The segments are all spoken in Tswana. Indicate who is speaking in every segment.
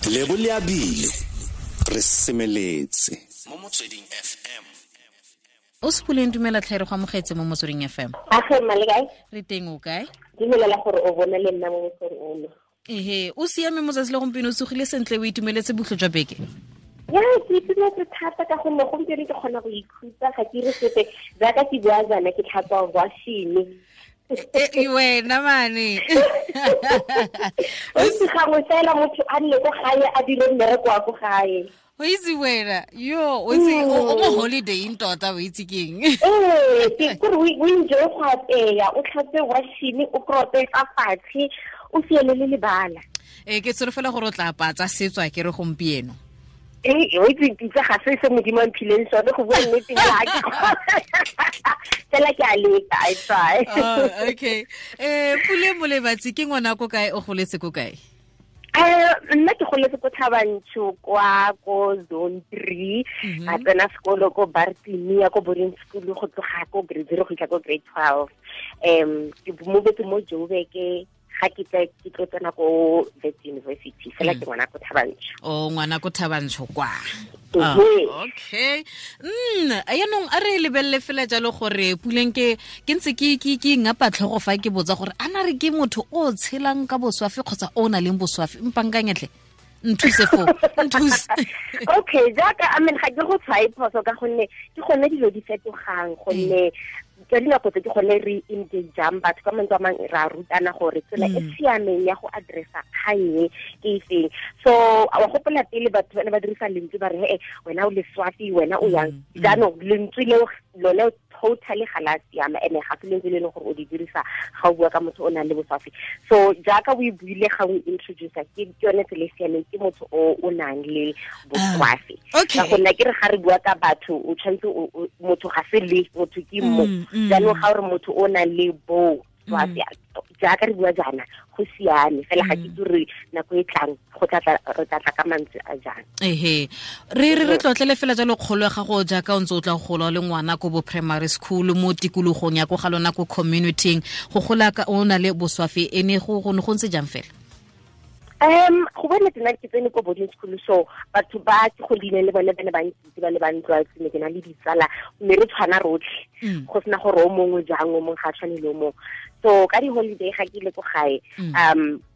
Speaker 1: Lebo le abile re semeletse mo Motsweding FM.
Speaker 2: O Sepuleng, dumela tlhe, re go amogetse mo Motsweding FM.
Speaker 3: Age mma, le kae?
Speaker 2: Re teng, o kae?
Speaker 3: Dumelela gore o bone le nna mo mosong ono.
Speaker 2: Ehe, o siame mo tsatsi le gompieno, o tsogile sentle, o itumeletse botlho jwa beke?
Speaker 3: Ya, ke itumetse thata ka gonne gompieno ke kgona go ikhutsa, ga ke re sepe. Jaaka ke bua jaana, ke tlhatswa washene.
Speaker 2: E wena mane.
Speaker 3: O itse, gangwe fela motho a nne ko gae, a dire mmereko wa ko gae.
Speaker 2: O itse wena, yo, o itse o mo holiday tota, o itse keng?
Speaker 3: Ee, ke kore o enjoy go apeya, o tlhatswe washene, o korope fa fatshe, o fiele le lebala.
Speaker 2: Ee, ke tsholofela gore o tla apaya tsa setso, a ke re, gompieno?
Speaker 3: Ee, o itse, pitsa ga se se Modimo a mphileng sone, go bua nnete fela fela ke a leka, I try.
Speaker 2: Oh, okay. Pule Molebatsi ke ngwana ko kae, o goletse ko kae?
Speaker 3: Nna ke goletse ko Thabantsho, kwa ko Zone 3. Ka tsena sekolo ko Bartimia, ko boarding school, go tloga ko grade 0 go fitlha ko grade 12. Ke movetse mo Joburg ga ke tla ke tlo tsena ko Wits University. Fela ke ngwana ko Thabantsho.
Speaker 2: O ngwana ko Thabantsho kwa. Ah, okay. Yaanong a re lebelele fela jalo gore Puleng, ke ntse ke ngapa tlhogo fa ke botsa gore a na re ke motho o tshelang ka boswafi kgotsa o na leng boswafi. Mpankanyetlhe, nthuse fo, nthuse.
Speaker 3: Okay, jaaka, I mean, ga ke go tshwae phoso ka gonne ke gone dilo di fetogang, gonne ka dinako tse ke gone re engageang batho. Ka mantswe a mangwe, ra rutana gore tsela e siameng ya go addressa kgang e ke efeng. So wa gopola pele batho ba ne ba dirisa lentswe, ba re, "Ee, wena o leswafi, wena o yang." Jaanong lentswe leo lone totally ga la siama, ene ga se lentswe le e leng gore o di dirisa ga o bua ka motho o nang le boswafi. So jaaka o e buile ga o introducer, ke yone tsela e siameng, ke motho o nang le boswafi. Ka gonne ke re ga re bua ka batho, o tshwanetse motho ga se le motho, ke mo. Jaanong ga o re motho o nang le bo swafi, jaaka re bua jaana, go siame fela. Ga ke itse gore nako e tlang go tla re tla tla ka mantswe a jang.
Speaker 2: Ehe, re tlotlele fela jalo kgolo ya gago jaaka o ntse o tla gola le ngwana ko bo primary school, mo tikologong ya ko ga lona, ko communityng, go gola ka o na le boswafi, e ne go ntse jang fela?
Speaker 3: Go bone tsena, ke tsene ko boarding school, so batho ba ke godile le bone ba ne ba nkitse, ba le ba ntlwaetse. Ne ke na le ditsala mme re tshwana rotlhe, go sena gore o mongwe jang, o mongwe ga a tshwane le o mongwe. So ka di-holiday ga ke ile ko gae,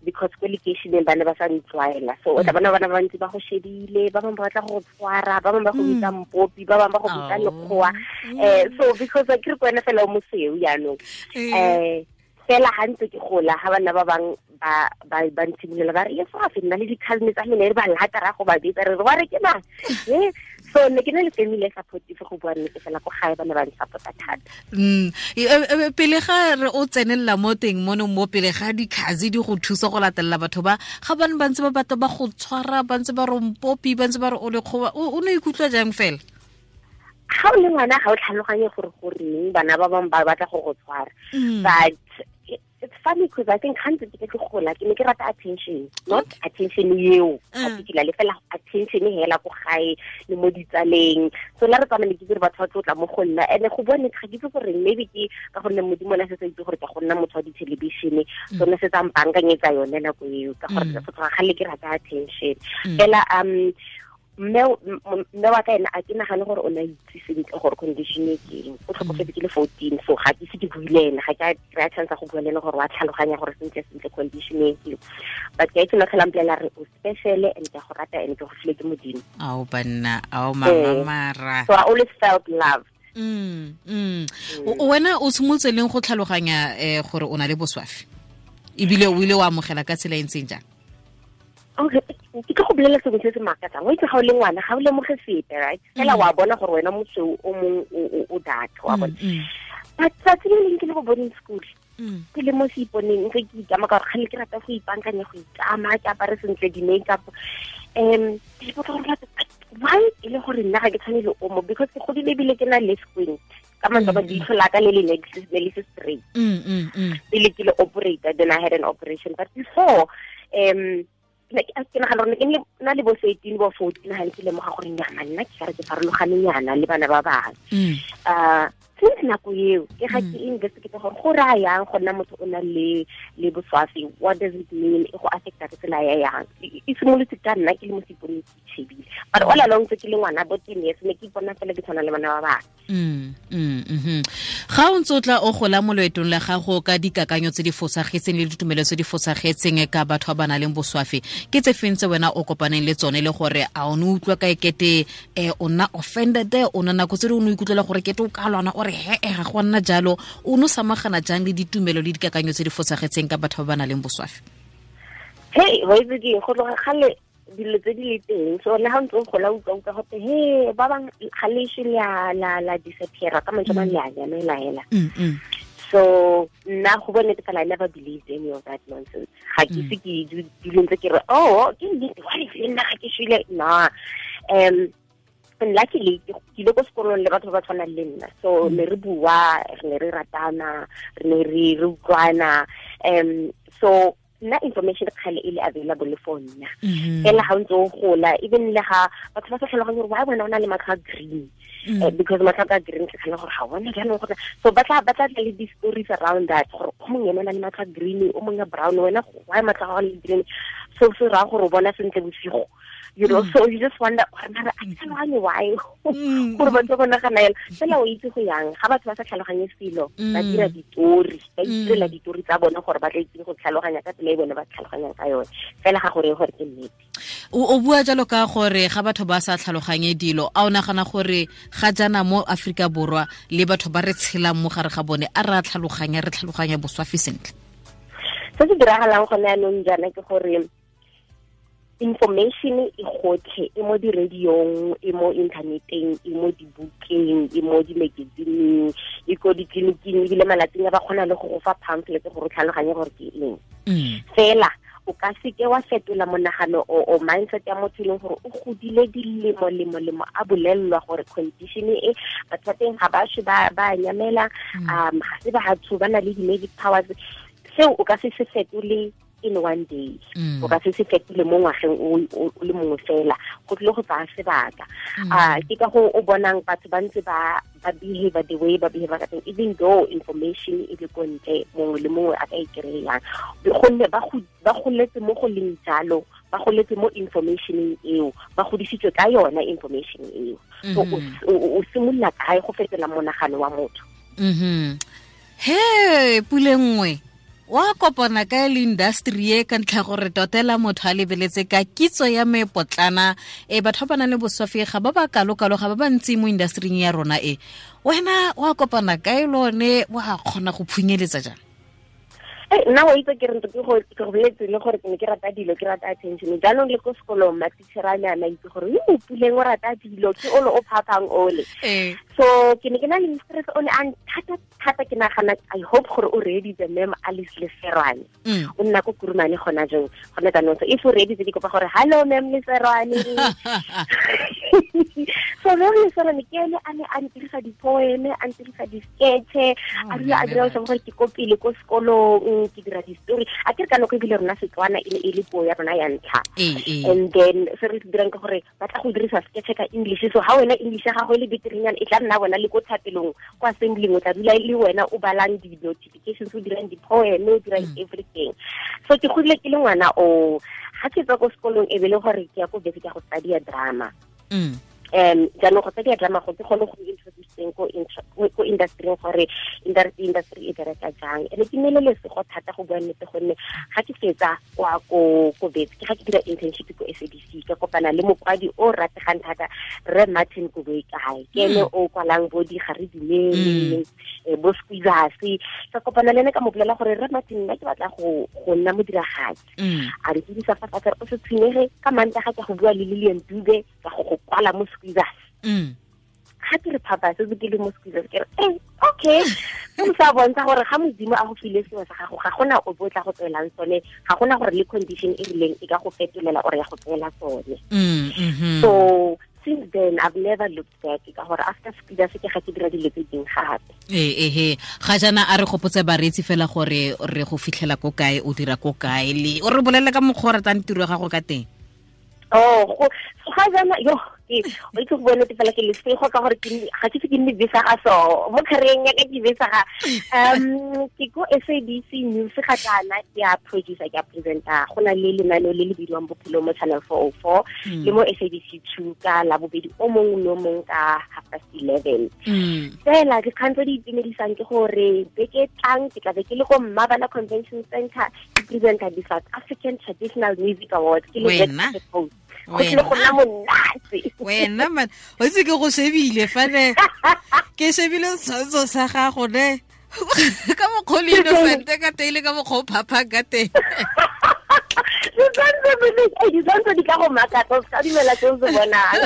Speaker 3: because ko lekeišeneng ba ne ba sa ntlwaela, so o tla bona bana ba bantsi ba go shebile, ba bangwe ba batla go tshwara, ba bangwe ba go bitsa mpopi, ba bangwe ba go bitsa lekgowa, so because ke re ko wena fela o mosweu. Jaanong fela ga ntse ke gola, ga bana ba bang ba ntshimolola ba re leswafe, nna le di-cousin tsa mene re ba lata, ra go ba bitsa, re re wa re ke mang e. So ne ke na le family e supportive, go bua nnete fela, ko gae ba ne ba nsupporta thata.
Speaker 2: Pele ga re o tsenelela mo teng mono, mo pele ga dikhazi di go thusa go latelela batho ba ga bane ba ntse ba batla ba go tshwara, ba ntse ba re mpopi, ba ntse ba re o lekgowa, o ne ikutlwa jang fela?
Speaker 3: Ga o le ngwana, ga o tlhaloganye gore goreng bana ba bangwe ba batla go go tshwara. But it's funny because I think gantsi ke ke gola, ke ne ke rata attention, not attention eo particularly, fela attention hela ko gae le mo ditsaleng. So la re tsamaya, ne ke dire batho ba tlotla mo go nna, and go bone ga ke itse gore maybe ke ka gonne Modimo ne se sa itse gore ke go nna motho wa di-television, so ne se tsa mpankanyetsa yone nako eo, ka gore go tloga gale ke rata attention fela. Mme wa ka ena, a ke nagane gore o ne a itse sentle gore condition e keng. O tlhokofetse ke le 14, so ga ke ise ke bue le ene, ga ke a kry-a chance ya go bua le ene gore wa tlhaloganya gore sentle sentle condition e keng. But ke a itse, na tlhola mpolelela re, "O special and ke a go rata and ke go file ke Modimo."
Speaker 2: Ao banna, ao mama mara.
Speaker 3: So I always felt loved.
Speaker 2: Wena o simolotse leng go tlhaloganya gore o na le boswafi, ebile o ile wa amogela ka tsela e ntseng jang?
Speaker 3: Okay, ke tlo go bolela sengwe se se makatsang. O itse, ga o le ngwana, ga o lemoge sepe, right? Fela wa bona gore wena mosweu, o mongwe o dark, wa bona. But tsatsi le leng ke le go boarding school, ke le mo seiponeng ntse ke ikama, ka gore kgale ke rata go ipankanya, go ikama, ke apare sentle, di-makeup. Ke ipotsa gore why e le gore nna ga ke tshwane le omo, because ke godile ebile ke na le squint. Ka mantswe a, leitlho la ka le le ne le se straight pele ke le operator. Then I had an operation, but before, ke nagana gore ke na le bo 13, bo 14, ga ntse lemoga gore nyama nna ke kare ke farologane nyana le bana ba bangwe. Since nako eo ke ga ke investigate gore go raya yang go nna motho o na le boswafi, what does it mean, e go affecta ka tsela ya yang. E simolotse ka nna ke le mo seponeng ke itshebile, but all along tse ke le ngwana bo 10 years ne ke ipona fela ke tshwana le bana ba bangwe.
Speaker 2: Ga o ntse o tla o gola mo loetong la gago ka dikakanyo tse di fosagetseng le ditumelo tse di fosagetseng ka batho ba ba nang le boswafi, ke tse feng tse wena o kopaneng le tsone, le gore a o ne utlwa ka ekete o nna offended, o nna nako tse dingwe o ikutlwela gore kete o ka lwana o re he ga go nna jalo, o no samagana jang le ditumelo le dikakanyo tse di fosagetseng ka batho ba ba nang le boswafi?
Speaker 3: Hey, wa itse ke go tloga gale dilo tse di le teng, so le ha ntse o gola utlwa gote he ba bang ga le ise la disappear ka mantswe a le a nyamela hela. So nna go bone fela I never believed any of that nonsense. Ga ke se ke dilo ntse ke re oh ke nnete, wa le nna ga ke shwele na. And luckily ke ile ko sekolong le batho ba tshwanang le nna, so ne re bua, re ne re ratana, re ne re utlwana. So nna information kgale e le available for nna. Fela ga o ntse o gola, even le ga batho ba sa tlhaloganye gore why wena o na le matlho a green, because matlho a green ke tlhaloganya gore ga bona jaanong gore, so ba tla le di-stories around that gore o mongwe ene o na le matlho a green, o mongwe a brown, wena why matlho a gago le green, so se raya gore o bona sentle bosigo, you know. So you just wonder gore mara a ke tlhaloganye why gore batho ba nagana yalo. Fela o itse go yang ga batho ba sa tlhaloganye selo, ba dira ditori, ba itirela ditori tsa bone gore ba tla itse go tlhaloganya ka tsela e bone ba tlhaloganyang ka yone, fela ga gore gore ke nnete.
Speaker 2: O bua jalo ka gore ga batho ba sa tlhaloganye dilo, a o nagana gore ga jaana mo Aforika Borwa le batho ba re tshelang mo gare ga bone a re a tlhaloganya, re tlhaloganya boswafi sentle?
Speaker 3: Se se diragalang gone anong jaana ke gore information e gotlhe, e mo di-radiong, e mo inthaneteng, e mo dibukeng, e mo di-magazineng, e ko ditleliniking, ebile malatsing a ba kgona le go go fa pamphlet gore o tlhaloganye gore ke eng. Fela o ka seke wa fetola monagano o mindset ya motho e leng gore o godile dilemo lemo lemo a bolellwa gore condition e batho ba teng ga ba shwe ba nyamela, ga se batho ba na le di-magic powers. Seo o ka se se fetole in one day, o ka se se fetile mo ngwageng o le mongwe fela, go tlile go tsaya sebaka. Ke ka go o bonang batho ba ntse ba behave the way ba behave ka teng, even though information e le ko ntle, mongwe le mongwe a ka e kry-ang, gonne ba goletse mo go leng jalo, ba goletse mo informationeng eo, ba godisitswe ka yona information eo. So o simolola kae go fetola monagano wa motho?
Speaker 2: He Pule nngwe wa kopana ka le industry e ka ntlha gore totela motho a lebeletse ka kitso ya mepotlana, batho ba ba nang le boswafi ga ba ba kalo-kalo, ga ba ba ntsi mo industryng ya rona e, wena wa kopana kae lone, wa kgona go phunyeletsa jang?
Speaker 3: Nna wa itse ke re ke go boletse le gore ke ne ke rata dilo, ke rata attention. Jaanong le ko sekolong matitšhere a ne a itse gore yo Puleng o rata dilo, ke ole o phaphang ole. So ke ne ke na le mistress o ne a nthata thata, ke nagana I hope gore o reeditse ma'am Alice Leserwane. O nna ko Kurumane gona jong, gona jaanong. So if o reeditse ke kopa gore hello ma'am Leserwane. So ma'am Leserwane ke ene a ne a ntirisa di-poem, a ntirisa di-sketche, a dula a dira gore ke ko pele ko sekolong, ke dira di-story. A ke re ka nako ebile rona Setswana e ne e le puo ya rona ya ntlha. And then se re se dirang ke gore ba tla go dirisa sketche ka English, so ha wena English ya gago e le beterenyana, e tla nna wena le ko thapelong kwa assembling, o tla dula le wena o balang di-notifications, o dirang di-poem, o dirang everything. So ke godile ke le ngwana o ga ke tswa ko sekolong e be le gore ke ya ko bese ke ya go study drama. Jaanong go study drama go ke kgone go introduceng ko industry gore industry e bereka jang. Ene ke nele lesego thata go bua nnete, gonne ga ke fetsa kwa ko betse ke ga ke dira internship ko SABC, ka kopana le mokwadi o rategang thata Rre Martin Koboikae, ke ene o kwalang bo di ga re dumele, bo Squeezers. Ka kopana le ene ka mo bolela gore Rre Martin nna ke batla go nna modiragatsi. A re dirisa fa fatshe o se tshwenyege, ka Mantaga ke go bua le Lillian Dube ka go kwala mo Squeezers. Ga ke re phapa se ke le mo Squeezers, ke re okay, se sa bontsha gore ga Modimo a go file sengwe sa gago, ga gona o bo tla go tswelang sone, ga gona gore le condition e rileng e ka go fetolela or ya go tswela sone. So since then I've never looked back, ka gore after Squeezers ke ga ke dira dilo tse dingwe gape.
Speaker 2: Ga jaana a re gopotse bareetsi fela gore re go fitlhela ko kae, o dira ko kae, le o re bolelle ka mokgwa o ratang tiro ya gago ka teng.
Speaker 3: Oh, go ga jaana yo Ke o itse go bone fela ke lesego ka gore ke ga ke se ke nne besa ga so mo career ya ka ke besa ga ke ko SABC News ga kana ke a producer, ke a presenter. Go na le lenaneo le le bidiwang Bophelo mo Channel 404 le mo SABC 2 ka Labobedi o mongwe le o mongwe ka 11:30. Fela dikgang tse di itumedisang ke gore beke tlang ke tla be ke le ko Mmabana Convention Center ke presenter di South African Traditional Music Awards ke le host. Go tlile go nna monate.
Speaker 2: Wena man, o itse ke go shebile fa ne ke shebile setshwantsho sa gago ne ka mokgwa o le innocent ka teng le ka mokgwa o phaphang ka teng.
Speaker 3: Ditshwantsho di ka go makatsa, o se ka dumela se o se bonang.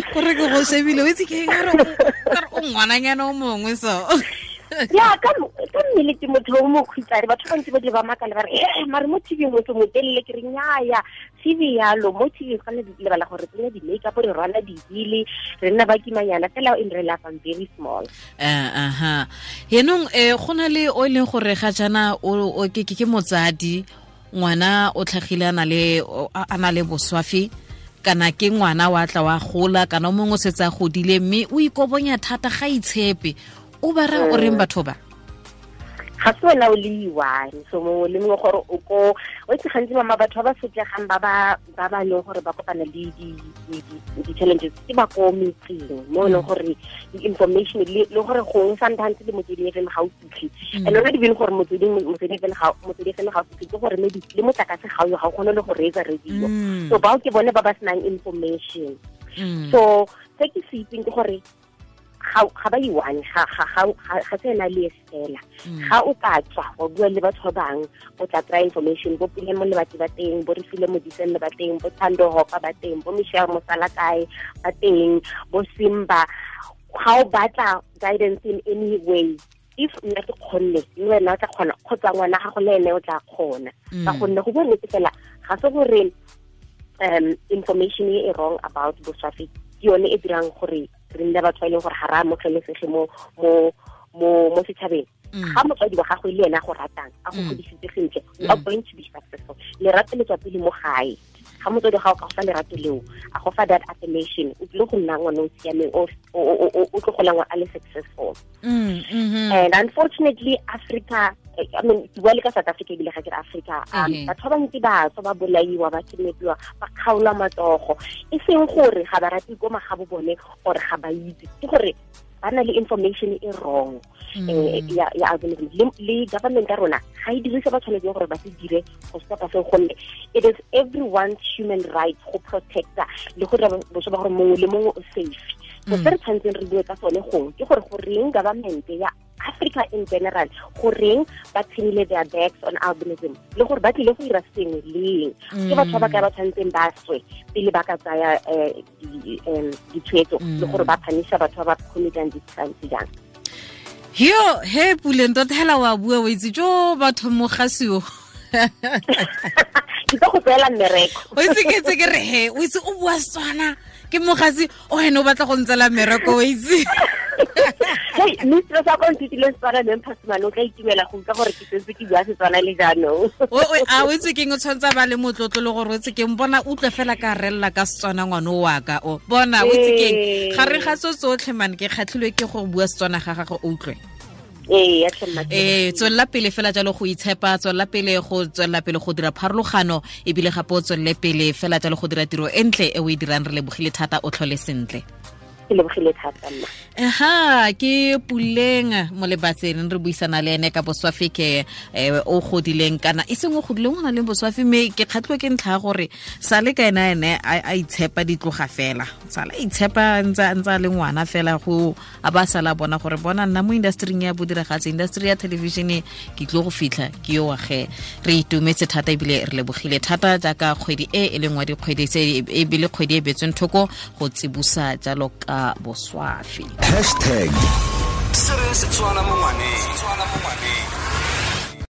Speaker 2: Gore ke go shebile, o itse ke eng, ka re o ngwananyana o mongwe so.
Speaker 3: Ya ka mmele ke motho o mokhutshwane, batho ba ntse ba di ba makala ba re mare mo TV motho motelele, ke re nnyaya TV yalo mo TV ga le lebala gore tsenya di-makeup, re rwala di-heel, re nna ba kimanyana fela in real life I'm very small.
Speaker 2: Aha. Yenong go na le o e leng gore ga jaana o ke motsadi, ngwana o tlhagile a na le boswafi, kana ke ngwana wa tla wa gola, kana o mongwe o setse a godile mme o ikobonya thata ga itshepe. O ba ra o reng batho ba?
Speaker 3: Ga se wena o le one, so mongwe le mongwe gore o ko o itse gantsi mama batho ba ba sotlegang ba ba leng gore ba kopana le di-challenges ke ba ko metseng mo e leng gore di-information le gore gongwe sometimes le Motsweding FM ga o fitlhe. And not even gore Motsweding FM ga o fitlhe, ke gore maybe le motlakase ga o ga o kgone le go reetsa radio. So bao ke bone ba ba senang information. So se ke se itseng ke gore ga ba iwane, ga se ena le fela. Ga o ka tswa wa bua le batho ba bangwe, o tla kry information, bo Pule mo Lebatsi ba teng, bo Refile Modiselle ba teng, bo Thando Hopa ba teng, bo Michelle Mosalakae ba teng, bo Simba. Ga o batla guidance in any way, if nna ke kgonne le wena o tla kgona, kgotsa ngwana gago le ene o tla kgona. Ka gonne go bua nnete fela ga se gore information e wrong about boswafi ke yone e dirang gore re nne batho ba e leng gore ga re amogelesege mo setšhabeng. Ga motswadi wa gago le ena a go ratang, a go godisitse sentle, you are going to be successful. Lerato le tswa pele mo gae. Ga motswadi wa gago ka go fa lerato leo, a go fa that affirmation, o tlile go nna ngwana o siameng, o tlo golang a le successful. And unfortunately, Africa, I mean, ke bua le ka South Africa ebile ga ke re Africa, batho ba bantsi ba tswa ba bolaiwa, ba kidnapiwa, ba kgaolwa matsogo, e seng gore ga ba rate ko magabo bone or ga ba itse, ke gore ba na le information e wrong ya albinism. Le government ya rona ga e dirise ba tshwanetseng gore ba se dire go stopa seo, gonne it is everyone's human right go protecta le go dira botho ba gore mongwe le mongwe o safe. So se re tshwanetseng re bue ka sone gongwe ke gore goreng government ya Africa in general, goreng ba tshwenile their backs on albinism, le gore ba tlile go dira sengwe leng. Ke batho ba ba ka ba tshwanetseng ba swe pele ba ka tsaya ditshwetso le gore ba phanisha batho ba ba committang di-crimes jang.
Speaker 2: Yo, he Puleng tota hela wa bua o itse jo batho mo gasio.
Speaker 3: Ke tlo go tseela mmereko.
Speaker 2: O itse ke tse ke re he, o itse o bua Setswana ke mogasi o ene o batla go ntsela mmereko o itse.
Speaker 3: Hey, mistress a ko nthutile Setswana le Mphasimane, o tla itumela go utlwa gore ke setse ke bua Setswana le jaanong.
Speaker 2: A o itse keng, o tshwanetse ba le motlotlo le gore o itse keng, bona utlwe fela ka rella ka Setswana ngwana o wa ka o. Bona o itse keng, gare ga tso tsotlhe man ke kgatlhilwe ke go bua Setswana ga gago o utlwe. Tswelela pele fela jalo go itshepa, tswelela pele go tswelela pele go dira pharologano, ebile gape o tswelele pele fela jalo go dira tiro e ntle e o e dirang. Re lebogile thata, o tlhole sentle.
Speaker 3: Ke lebogile thata nna.
Speaker 2: Aha, ke Puleng Molebatsi, re buisana le ene ka boswafi ke o godileng kana e seng o godileng, o na le boswafi, mme ke kgatlhwe ke ntlha ya gore sale ka ena ene a itshepa ditloga fela, sala itshepa ntsa le ngwana fela go a ba sala bona gore bona nna mo industry ya bodiragatsi, industry ya television ke tlo go fitlha ke yo wage. Re itumetse thata ebile re lebogile thata jaaka kgwedi e e leng wa dikgwedi tse ebile kgwedi e betsweng thoko go tsibusa jalo ka boswafi.
Speaker 1: Hashtag Setswana mo ngwaneng.